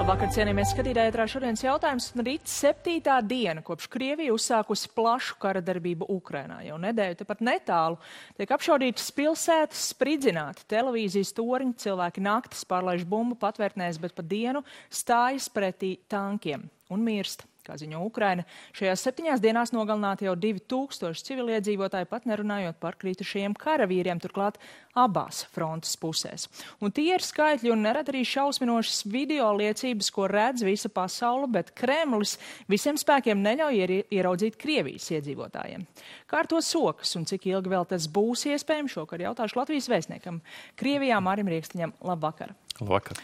Labvakar, cienījamies skatītāji, ētrā šodienas jautājums. Rīt 7. diena, kopš Krievija uzsākusi plašu kara darbību Ukrainā. Jau nedēļu tepat netālu tiek apšaudītas pilsētas, spridzināti televīzijas toriņi, cilvēki naktis pārlaiž bumbu patvērtnēs, bet pa dienu stājas pretī tankiem un mirst. Kā ziņo Ukraina, šajās 7 dienās nogalināti jau 2000 civiliedzīvotāji, pat nerunājot par kritušajiem karavīriem, turklāt abās frontes pusēs. Un tie ir skaitļi un nerad arī šausminošas video liecības, ko redz visa pasaule, bet Kremlis visiem spēkiem neļauj ieraudzīt Krievijas iedzīvotājiem. Kā ar to sokas un cik ilgi vēl tas būs iespējams, šokar jautāšu Latvijas vēstniekam Krievijā Mārim Riekstiņam. Labvakar! Labvakar.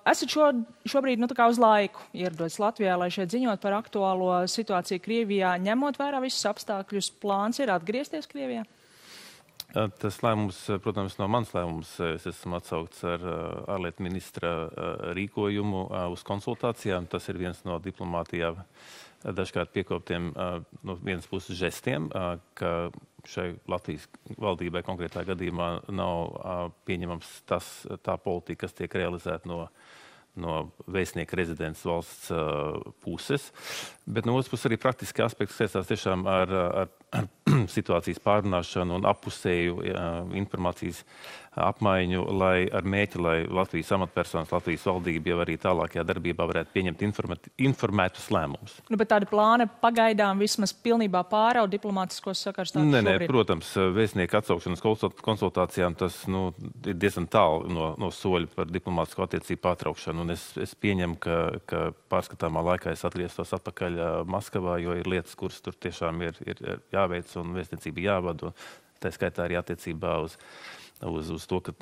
Esat šobrīd uz laiku ieradoties Latvijā, lai šeit ziņot par aktuālo situāciju Krievijā, ņemot vērā visus apstākļus. Plāns ir atgriezties Krievijā? Tas lēmums, protams, nav mans lēmums. Es esmu atsaukts ar ārlietu ministra rīkojumu uz konsultācijām. Tas ir viens no diplomātijā dažkārt piekoptiem no vienas puses žestiem, ka šai Latvijas valdībai konkrētā gadījumā nav pieņemams tā politika, kas tiek realizēta no vēstnieka rezidents valsts puses. Bet no otras puses arī praktiski aspekti saistās tiešām ar situācijas pārrunāšanu un appusēju informācijas apmaiņu, ar mērķi, lai Latvijas amatpersonas, Latvijas valdība jau arī tālākajā darbībā varētu pieņemt informētus lēmumus. Bet tādi plāni pagaidām vismaz pilnībā pārauga diplomātiskos sakars tādu šobrīd? Nē, protams, vēstnieka atsaukšanas konsultācijām tas ir diezgan tālu no soļa par diplomātisko attiecību pārtraukšanu. Un es pieņemu, ka pārskatāmā laikā es atgrieztos atpakaļ Maskavā, jo ir lietas, kuras tur tiešām ir jāveic un vēstniecība jāvada. Tā skaitā arī attiecībā uz to, ka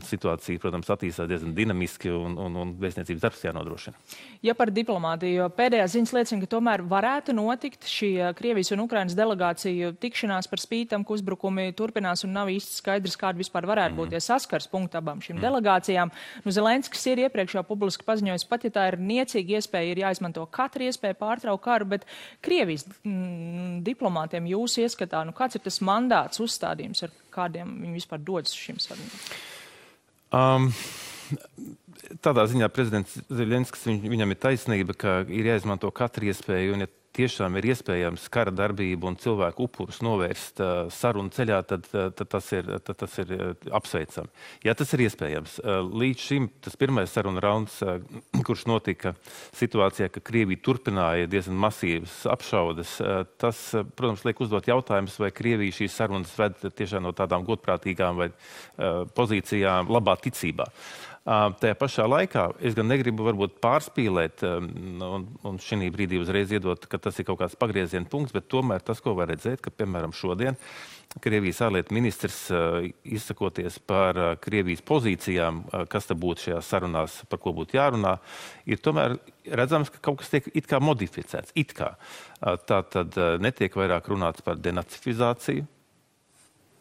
situācija, protams, attīstās diezgan dinamiski un vēstniecības darbs jānodrošina. Ja par diplomātiju, jo pēdējās ziņas liecina, ka tomēr varētu notikt šī Krievijas un Ukrainas delegāciju tikšanās par spītam, ka uzbrukumi turpinās un nav īsti skaidrs, kāda vispār varētu būt tie saskars punkti abām šīm delegācijām. Zelenskis ir iepriekš jau publiski paziņojis, pat ja tā ir niecīga iespēja, ir jāizmanto katra iespēja pārtraukt karu, bet Krievijas diplomātiem jūsu ieskatā, kāds ir tas mandāts, uzstādījums, ar kādiem viņi vispār dodas šīm sarunām? Tādā ziņā prezidents Zelenskis, viņam ir taisnība, ka ir jāizmanto katra iespēja, un ja tiešām ir iespējams kara darbību un cilvēku upurus novērst sarunu ceļā, tad tas ir apsveicami. Jā, tas ir iespējams. Līdz šim tas pirmais saruna rauns, kurš notika situācijā, ka Krievija turpināja diezgan masīvas apšaudes, tas, protams, liek uzdot jautājumus, vai Krievija šīs sarunas ved tiešām no tādām godprātīgām vai pozīcijām labā ticībā. Tajā pašā laikā es gan negribu varbūt pārspīlēt un šī brīdī uzreiz iedot, ka tas ir kaut kāds pagrieziena punkts, bet tomēr tas, ko var redzēt, ka, piemēram, šodien Krievijas ārlietu ministrs izsakoties par Krievijas pozīcijām, kas te būtu šajās sarunās, par ko būtu jārunā, ir tomēr redzams, ka kaut kas tiek it kā modificēts. It kā. Tā tad netiek vairāk runāts par denacifizāciju.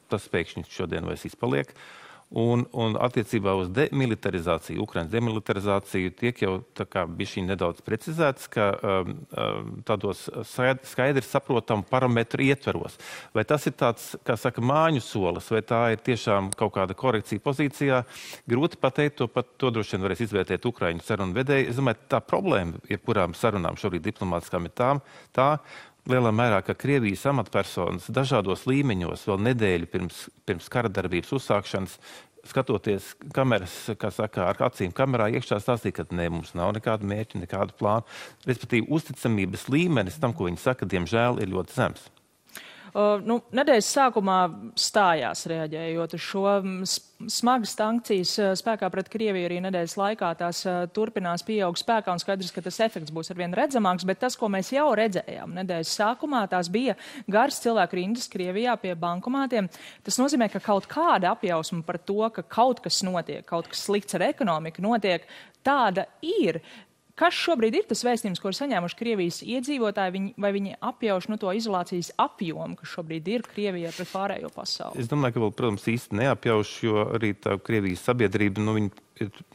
Tas pēkšņi šodien vairs izpaliek. Un attiecībā uz demilitarizāciju, Ukrainas demilitarizāciju, tiek jau tā kā bišķiņ nedaudz precizēts, ka tādos skaidri saprotamu parametru ietveros. Vai tas ir tāds, kā saka, māņu solis, vai tā ir tiešām kaut kāda korekcija pozīcijā? Grūti pateikt, to droši vien varēs izvērtēt Ukraiņu sarunu vedēji. Es domāju, tā problēma, jebkurām sarunām šobrīd diplomātiskām ir tā, lielā mērā, ka Krievijas amatpersonas dažādos līmeņos vēl nedēļu pirms kara darbības uzsākšanas, skatoties kameras, kā saka, ar acīm kamerā iekšā stāstīja, ka ne, mums nav nekādu mērķu, nekādu plānu. Respektīvi, uzticamības līmenis tam, ko viņi saka, diemžēl ir ļoti zems. Nedēļas sākumā stājās reaģējot uz šo smagas sankcijas spēkā pret Krieviju arī nedēļas laikā. Tās turpinās pieaug spēkā un skaidrs, ka tas efekts būs arvien redzamāks, bet tas, ko mēs jau redzējām nedēļas sākumā, tās bija garas cilvēku rindas Krievijā pie bankomātiem. Tas nozīmē, ka kaut kāda apjausma par to, ka kaut kas notiek, kaut kas slikts ar ekonomiku notiek, tāda ir. Kas šobrīd ir tas vēstījums, ko ir saņēmuši Krievijas iedzīvotāji, vai viņi apjauš to izolācijas apjomu, kas šobrīd ir Krievijā pret pārējo pasauli? Es domāju, ka vēl, protams, īsti neapjauš, jo arī tā Krievijas sabiedrība, viņi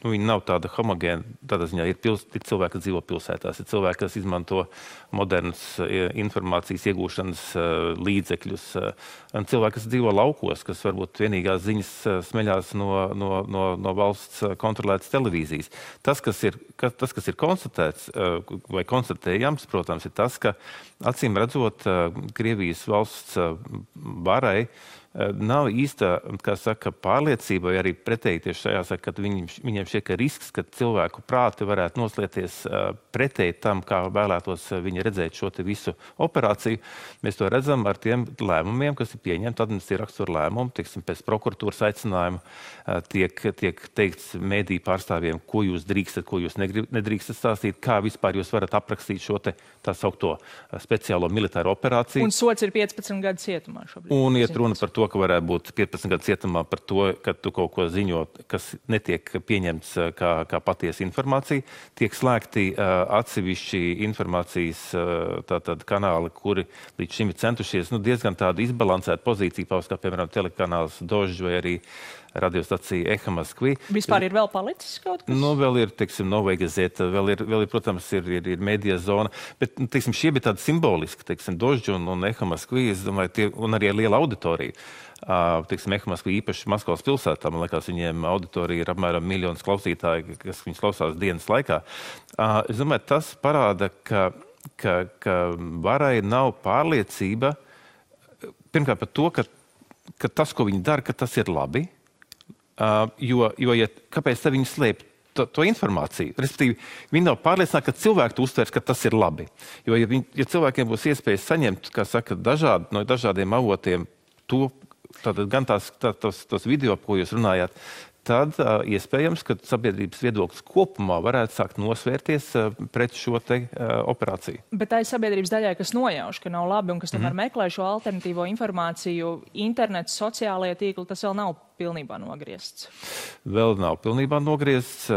viņi nav tāda homogēna. Tādā ziņā ir cilvēki, kas dzīvo pilsētās, ir cilvēki, kas izmanto modernas informācijas iegūšanas līdzekļus, un cilvēki, kas dzīvo laukos, kas varbūt vienīgās ziņas smeļās no valsts kontrolētas televīzijas. Tas, kas ir konstatēts vai konstatējams, protams, ir tas, ka acīm redzot Krievijas valsts varai nav īsta, kā saka, pārliecība, vai arī pretēji tieši šajā saka, ka viņiem šķiet, ka risks, ka cilvēku prāti varētu noslēties pretēji tam, kā vēlētos viņi redzēt šo te visu operāciju. Mēs to redzam ar tiem lēmumiem, kas ir pieņemti administratīva rakstura lēmumi, teiksim, pēc prokuratūras aicinājuma tiek teikts mediju pārstāvjiem, ko jūs drīkstat, ko jūs nedrīkstat stāstīt, kā vispār jūs varat aprakstīt šo te tā saukto speciālo militāro operāciju. Un sots ir 15 gadu cietumā šobrīd. Un iet runa par to, ka varētu būt 15 gadu cietumā par to, ka tu kaut ko ziņo, kas netiek pieņemts kā patiesa informācija. Tiek slēgti atsevišķi informācijas tātad kanāli, kuri līdz šim ir centušies diezgan tādu izbalansētu pozīciju paust, kā piemēram telekanāls Dožģ vai arī radiostacija Eha Moskvi. Vispār ir vēl palicis kaut kas? Vēl ir, teiksim, Novaya Gazeta, vēl ir, protams, ir medija zona, bet, teiksim, šie bija tādi simboliski, teiksim, Dožģ un Eha Moskvi, es domāju, un arī liela auditorija. Teiksim, Eha Moskvi īpaši Maskavas pilsētā, man liekas, viņiem auditorija ir apmēram 1 miljons klausītāji, kas viņus klausās dienas laikā. Es domāju, tas parāda, ka varai nav pārliecība, pirmkārt par to, ka tas, ko viņi dara, ka tas ir labi. Kāpēc te viņi slēp to informāciju? Respektīvi, viņi nav pārliecināti, ka cilvēki to uztvers, ka tas ir labi. Jo, ja cilvēkiem būs iespējas saņemt, kā saka, no dažādiem avotiem tātad gan tos video, ko jūs runājāt, tad iespējams, ka sabiedrības viedoklis kopumā varētu sākt nosvērties pret šo te operāciju. Bet tā ir sabiedrības daļai, kas nojauš, ka nav labi un kas tomēr meklē šo alternatīvo informāciju. Internets, sociālajie tīkli, tas vēl nav pilnībā nogriezts. Vēl nav pilnībā nogriezts.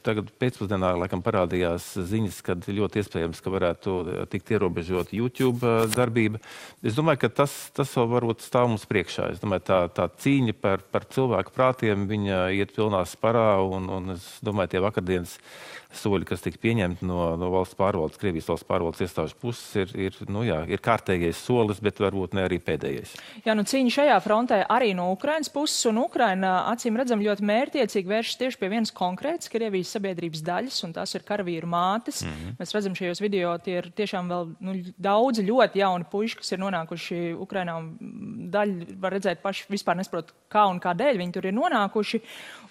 Tagad pēcpusdienā laikam parādījās ziņas, kad ļoti iespējams, ka varētu tikt ierobežot YouTube darbība. Es domāju, ka tas vēl varbūt stāv mums priekšā. Es domāju, tā cīņa par cilvēku prātiem, viņa iet pilnā sparā, un es domāju, tie vakardienas soļi, kas tika pieņemti no valsts pārvaldes, Krievijas valsts pārvaldes iestāžu puses, ir kārtējais solis, bet varbūt ne arī pēdējais. Jā, cīņa šajā frontē arī no Ukrainas puses, un Ukraina, acīm redzam, ļoti mērķiecīgi vēršas tieši pie vienas konkrētas Krievijas sabiedrības daļas, un tās ir karavīru mātes. Mēs redzam šajos video, tie ir tiešām vēl daudzi ļoti jauni puiši, kas ir nonākuši Ukrainā, un daļa var redzēt paši vispār nesaprot, kā un kādēļ viņi tur ir nonākuši.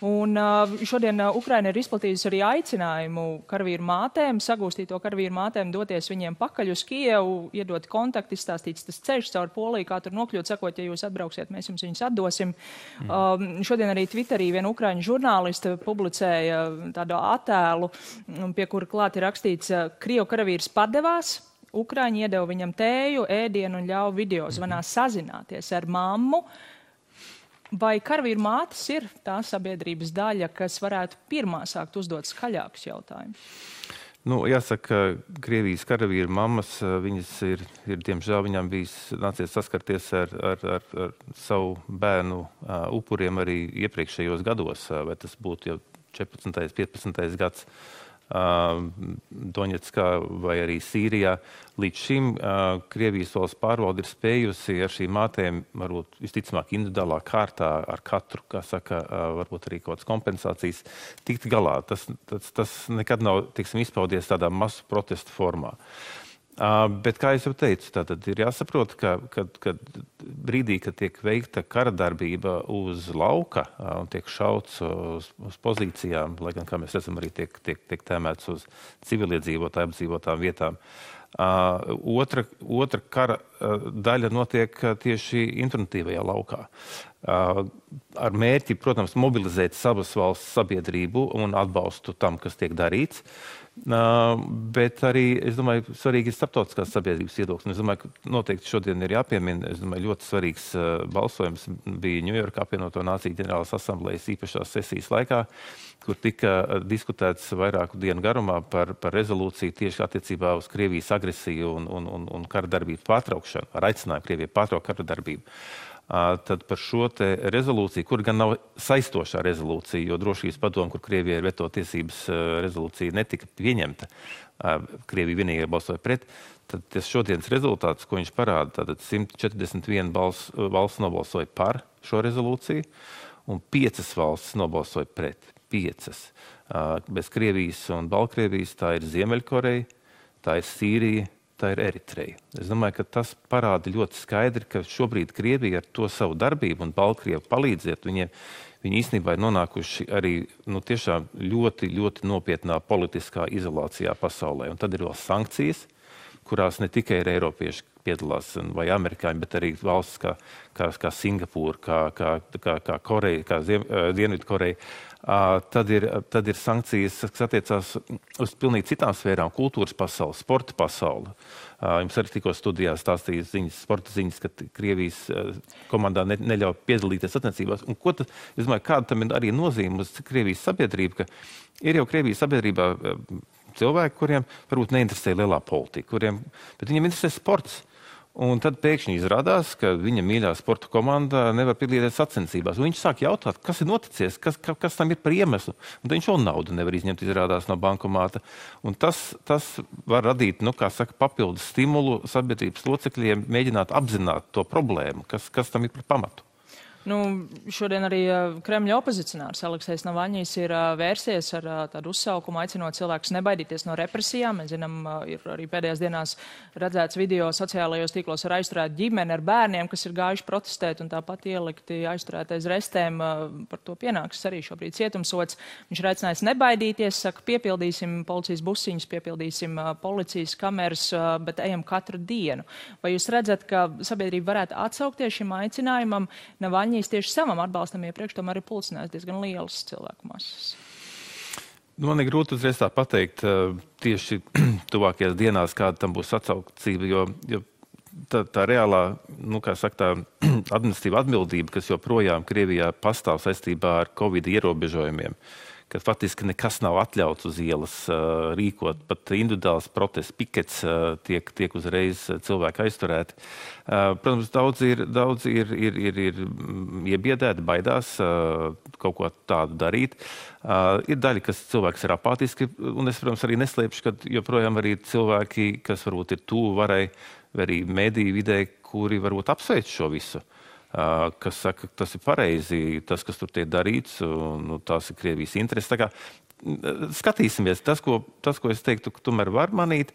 Un šodien Ukraina ir izplatījusi arī aicinājumu karavīru mātēm, sagūstīto karavīru mātēm doties viņiem pakaļ uz Kijevu, iedot kontaktu, izstāstīts tas ceļš caur Poliju, kā tur nokļūt, sakot, ja jūs atbrauksiet, mēs jums viņus atdosim. Šodien arī Twitterī viena ukraiņu žurnāliste publicēja tādu attēlu, pie kura klāt ir rakstīts, Krievu karavīrs padevās, Ukraiņi iedeva viņam tēju, ēdienu un ļauj video zvanā sazināties ar mammu. Vai karavīru mātes ir tā sabiedrības daļa, kas varētu pirmā sākt uzdot skaļākus jautājumus? Jāsaka, Krievijas karavīru mammas, viņas ir diemžēl, viņām nācies saskarties ar savu bērnu upuriem arī iepriekšējos gados, vai tas būtu jau 14. 15. gads. Doņetskā vai arī Sīrijā. Līdz šim Krievijas valsts pārvalde ir spējusi ar šīm mātēm, varbūt visticamāk individuālā kārtā, ar katru, kā saka, varbūt arī kaut kādas kompensācijas, tikt galā. Tas nekad nav, teiksim, izpaudies tādā masu protestu formā. Bet, kā es jau teicu, tātad ir jāsaprot, ka brīdī, kad tiek veikta kara darbība uz lauka un tiek šauts uz pozīcijām, lai gan, kā mēs redzam, arī tiek tēmēts uz civiliedzīvotāju apdzīvotām vietām, otra kara daļa notiek tieši informatīvajā laukā. Ar mērķi, protams, mobilizēt savas valsts sabiedrību un atbalstu tam, kas tiek darīts. Bet arī, es domāju, svarīgi ir starptautiskās sabiedrības viedoklis. Es domāju, ka noteikti šodien ir jāpiemina, es domāju, ļoti svarīgs balsojums bija Ņujorkā apvienoto nāciju ģenerālas asamblējas īpašās sesijas laikā, kur tika diskutēts vairāku dienu garumā par rezolūciju tieši attiecībā uz Krievijas agresiju un kara darbību pārtraukšanu, ar aicinājumu Krievijai pārtraukt kara darbību. tad par šo te rezolūciju, kur gan nav saistošā rezolūcija, jo drošības padome, kur Krievijai ir veto tiesības, rezolūcija netika pieņemta, Krievija vienīgi balsoja pret, tad tas šodienas rezultāts, ko viņš parāda, tātad 141 valsts nobalsoja par šo rezolūciju, un 5 valsts nobalsoja pret. 5. Bez Krievijas un Baltkrievijas tā ir Ziemeļkoreja, tā ir Sīrija, tā ir Eritreja. Es domāju, ka tas parāda ļoti skaidri, ka šobrīd Krievija ar to savu darbību un Baltkrievu palīdziet, viņi īstenībā ir nonākuši arī tiešām ļoti, ļoti nopietnā politiskā izolācijā pasaulē. Un tad ir vēl sankcijas, kurās ne tikai ir eiropieši piedalās vai amerikāņi, bet arī valsts kā Singapūra, kā Koreja, kā Dienvidkoreja. Tad ir sankcijas, kas attiecās uz pilnīgi citām sfērām, kultūras pasauli, sporta pasauli. Jums arī tikko studijā stāstīja sporta ziņas, ka Krievijas komandā neļauj piedalīties sacensībās. Un es domāju, kāda tam ir arī nozīme uz Krievijas sabiedrību, ka ir jau Krievijas sabiedrībā cilvēki, kuriem varbūt neinteresē lielā politika, bet viņiem interesē sports. Un tad pēkšņi izrādās, ka viņa mīļā sporta komanda nevar piedalīties sacensībās. Un viņš sāk jautāt, kas ir noticies, kas tam ir par iemeslu. Un tad viņš vēl naudu nevar izņemt, izrādās no bankomāta. Un tas var radīt, papildus stimulu sabiedrības locekļiem mēģināt apzināt to problēmu, kas tam ir par pamatu. Šodien arī Kremļa opozicionārs Aleksejs Navaļņijs ir vērsies ar tādu uzsaukumu, aicinot cilvēkus nebaidīties no represijām. Mēs zinām, ir arī pēdējās dienās redzēts video sociālajos tīklos ar aizturētu ģimeni ar bērniem, kas ir gājuši protestēt un tāpat ielikti aizturētais restēm. Par to pienāks arī šobrīd cietumsods. Viņš ir aicinājis nebaidīties, saka, piepildīsim policijas busiņus, piepildīsim policijas kameras, bet ejam katru dienu. Vai jūs redzat, ka sabiedrība varētu atsaukties šim aicinājumam? Navaļņijs tieši savam atbalstam iepriekš tomēr ir pulcinājis diezgan lielas cilvēku masas. Man ir grūti uzreiz tā pateikt tieši tuvākajās dienās, kāda tam būs atsaucība, jo tā reālā, tā administratīva atbildība, kas joprojām Krievijā pastāv saistībā ar Covid ierobežojumiem, ka faktiski nekas nav atļauts uz ielas rīkot, pat individuāls protests, pikets tiek uzreiz cilvēki aizturēti. Protams, daudz ir iebiedēti, baidās kaut ko tādu darīt. Ir daļa, kas cilvēks ir apātiski, un es, protams, arī neslēpšu, ka joprojām arī cilvēki, kas varbūt ir tuvu varai, vai arī mediju vidē, kuri varbūt apsveic šo visu. Kas saka, ka tas ir pareizi, tas, kas tur tiek darīts, un tās ir Krievijas intereses. Tā kā skatīsimies, tas, ko es teiktu, ka tomēr var manīt,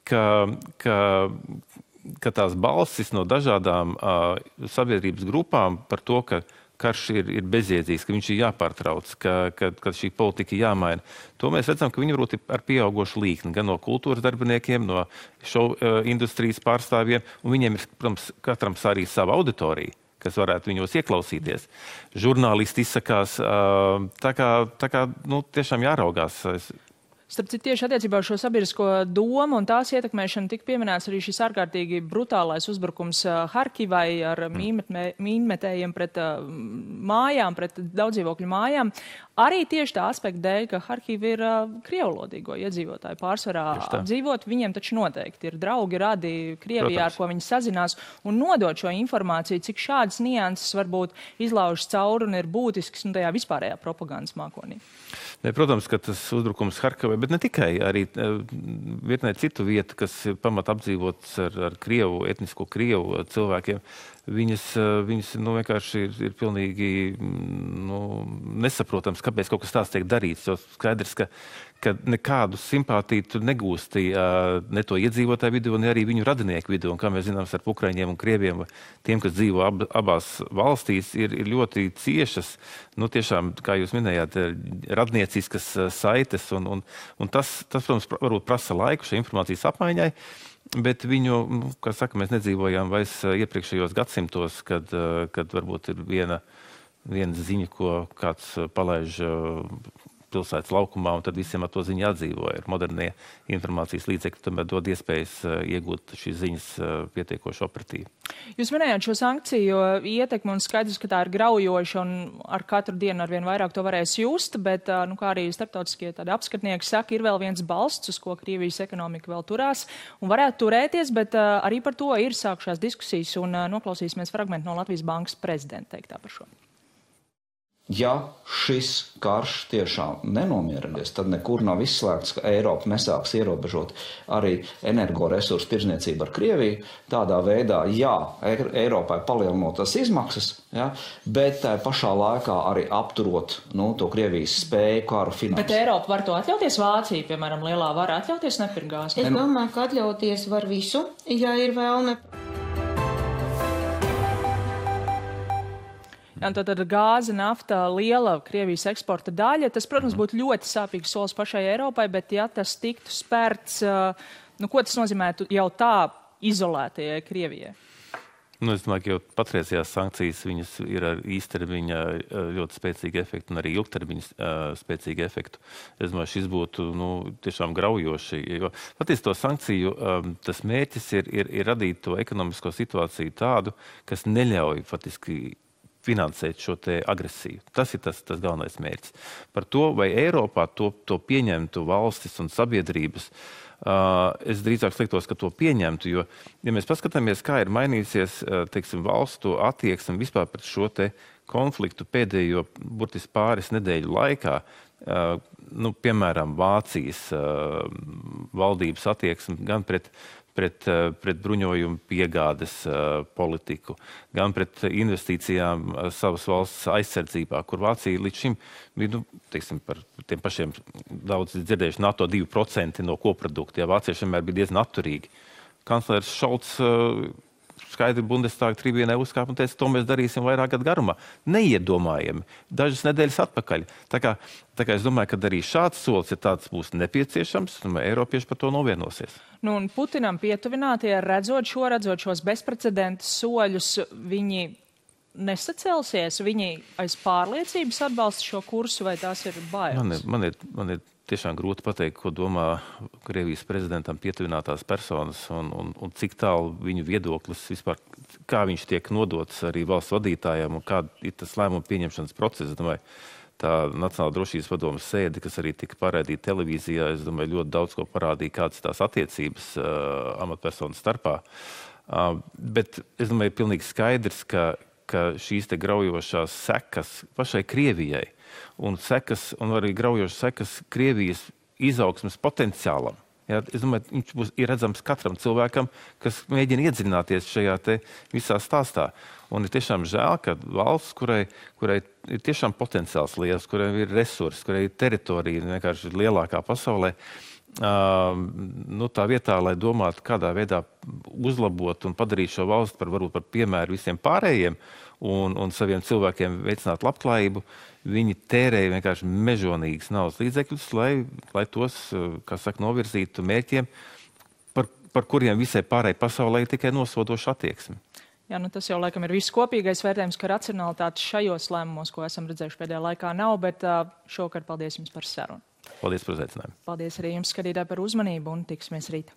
ka tās balsis no dažādām sabiedrības grupām par to, ka karš ir bezjēdzīgs, ka viņš ir jāpārtrauc, ka šī politika ir jāmaina. To mēs redzam, ka viņi varbūt ir ar pieaugošu līkni, gan no kultūras darbiniekiem, no šovu industrijas pārstāvjiem, un viņiem ir, protams, katram arī sava auditorija, kas varētu viņos ieklausīties. Žurnālisti izsakās, tā kā tiešām jāraugās. Starp citu, tieši attiecībā uz šo sabiedrisko domu un tās ietekmēšanu tika pieminēts arī šis ārkārtīgi brutālais uzbrukums Harkivai ar mīnmetējiem pret mājām, pret daudzdzīvokļu mājām. Arī tieši tā aspekta dēļ, ka Harkiva ir krievlodīgo iedzīvotāju pārsvarā apdzīvot, viņiem taču noteikti ir draugi, radi Krievijā, ar ko viņi sazinās, un nodot šo informāciju, cik šādas nianses varbūt izlaužas cauri un ir būtisks tajā vispārējā propagandas mākonī. Protams, ka tas uzbrukums Harkivai, bet ne tikai, arī virknē citu vietu, kas ir pamat apdzīvotas ar Krievu, etnisko Krievu cilvēkiem, viņas vienkārši ir pilnīgi nesaprotams, kāpēc kaut kas tāds tiek darīts. Jo skaidrs, ka nekādu simpātiju tu negūsti ne to iedzīvotāju vidū, ne arī viņu radinieku vidū. Un kā mēs zinām, ar Ukraiņiem un Krieviem, tiem, kas dzīvo abās valstīs, ir ļoti ciešas, tiešām, kā jūs minējāt, radnieciskas saites. Un tas, protams, varbūt prasa laiku šai informācijas apmaiņai. Bet viņu, kā saka, mēs nedzīvojām vairs iepriekšējos gadsimtos, kad varbūt ir viena ziņa, ko kāds palaiž pilsētas laukumā, un tad visiem ar to ziņu atdzīvoja. Modernie informācijas līdzekļi tomēr dod iespējas iegūt šīs ziņas pietiekoši operatīvi. Jūs minējāt šo sankciju ietekmi, un skaidrs, ka tā ir graujoša, un ar katru dienu arvien vairāk to varēs just, bet, kā arī starptautiskie tādi apskatnieki saka, ir vēl viens balsts, uz ko Krievijas ekonomika vēl turās, un varētu turēties, bet arī par to ir sākušās diskusijas, un noklausīsimies fragmentu no Latvijas Bankas prezidenta teiktā par šo. Ja šis karš tiešām nenomierinies, tad nekur nav izslēgts, ka Eiropa nesāks ierobežot arī energoresursu tirdzniecību ar Krieviju. Tādā veidā, jā, Eiropai palielinot tas izmaksas, ja, bet tā pašā laikā arī apturot to Krievijas spēju karu finansēt. Bet Eiropa var to atļauties? Vācija, piemēram, lielā var atļauties nepirkt gāzi? Es domāju, ka atļauties var visu, ja ir vēlme. Jā, tad gāze, nafta, liela Krievijas eksporta daļa. Tas, protams, būtu ļoti sāpīgs solis pašai Eiropai, bet ja tas tiktu spērts, ko tas nozīmētu jau tā izolētajai Krievijai? Es domāju, ka jau patreizējās sankcijas viņas ir ar īstermiņa ļoti spēcīgu efektu un arī ilgtermiņa spēcīgu efektu. Es domāju, šis būtu tiešām graujoši. Jo patiesi to sankciju tas mērķis ir radīt to ekonomisko situāciju tādu, kas neļauj faktiski finansēt šo te agresiju. Tas ir tas galvenais mērķis. Par to, vai Eiropā to pieņemtu valstis un sabiedrības, es drīzāk sliktos, ka to pieņemtu, jo, ja mēs paskatāmies, kā ir mainījusies, teiksim, valstu attieksme vispār pret šo te konfliktu pēdējo burtiski pāris nedēļu laikā, piemēram, Vācijas valdības attieksme gan pret bruņojumu piegādes politiku, gan pret investīcijām savas valsts aizsardzībā, kur Vācija līdz šim bija, teiksim, par tiem pašiem daudz dzirdējuši NATO 2% no koprodukta. Ja Vācieši vienmēr bija diezgan atturīgi. Kanclers Šolts skaidri Bundestāga tribīnē uzkāpa un teica, to mēs darīsim vairāk gadu garumā. Neiedomājami. Dažas nedēļas atpakaļ. Tā kā es domāju, ka arī šāds solis, ja tāds būs nepieciešams, Eiropieši par to novienosies. Un Putinam pietuvinātie, redzot šos bezprecedentu soļus, viņi nesacelsies, viņi aiz pārliecības atbalsta šo kursu, vai tās ir bailes? Man ir tiešām grūti pateikt, ko domā Krievijas prezidentam pietuvinātās personas un cik tālu viņu viedoklis vispār, kā viņš tiek nodots arī valsts vadītājiem un kā ir tas lēmumu pieņemšanas process. Es domāju, tā Nacionālā drošības padomes sēde, kas arī tika parādīta televīzijā, es domāju, ļoti daudz ko parādīja, kādas tās attiecības amatpersonu starpā. Bet es domāju, ir pilnīgi skaidrs, ka šīs te graujošās sekas pašai Krievijai un arī graujošas sekas Krievijas izaugsmes potenciālam. Ja, es domāju, viņš ir redzams katram cilvēkam, kas mēģina iedziļināties šajā te visā stāstā. Un ir tiešām žēl, ka valsts, kurai ir tiešām potenciāls liels, kurai ir resursi, kurai ir teritorija vienkārši lielākā pasaulē, tā vietā, lai domātu, kādā veidā uzlabot un padarīt šo valsti varbūt par piemēru visiem pārējiem un saviem cilvēkiem veicināt labklājību, viņi tērēja vienkārši mežonīgas naudas līdzekļus, lai tos, kā saka, novirzītu mērķiem, par kuriem visai pārējai pasaulē ir tikai nosodoša attieksme. Jā, tas jau laikam ir viss kopīgais vērtējums, ka racionalitātes šajos lēmumos, ko esam redzējuši pēdējā laikā, nav, bet šovakar paldies jums par sarunu. Paldies par uzaicinājumu. Paldies arī jums, skatītāji, par uzmanību un tiksimies rīt.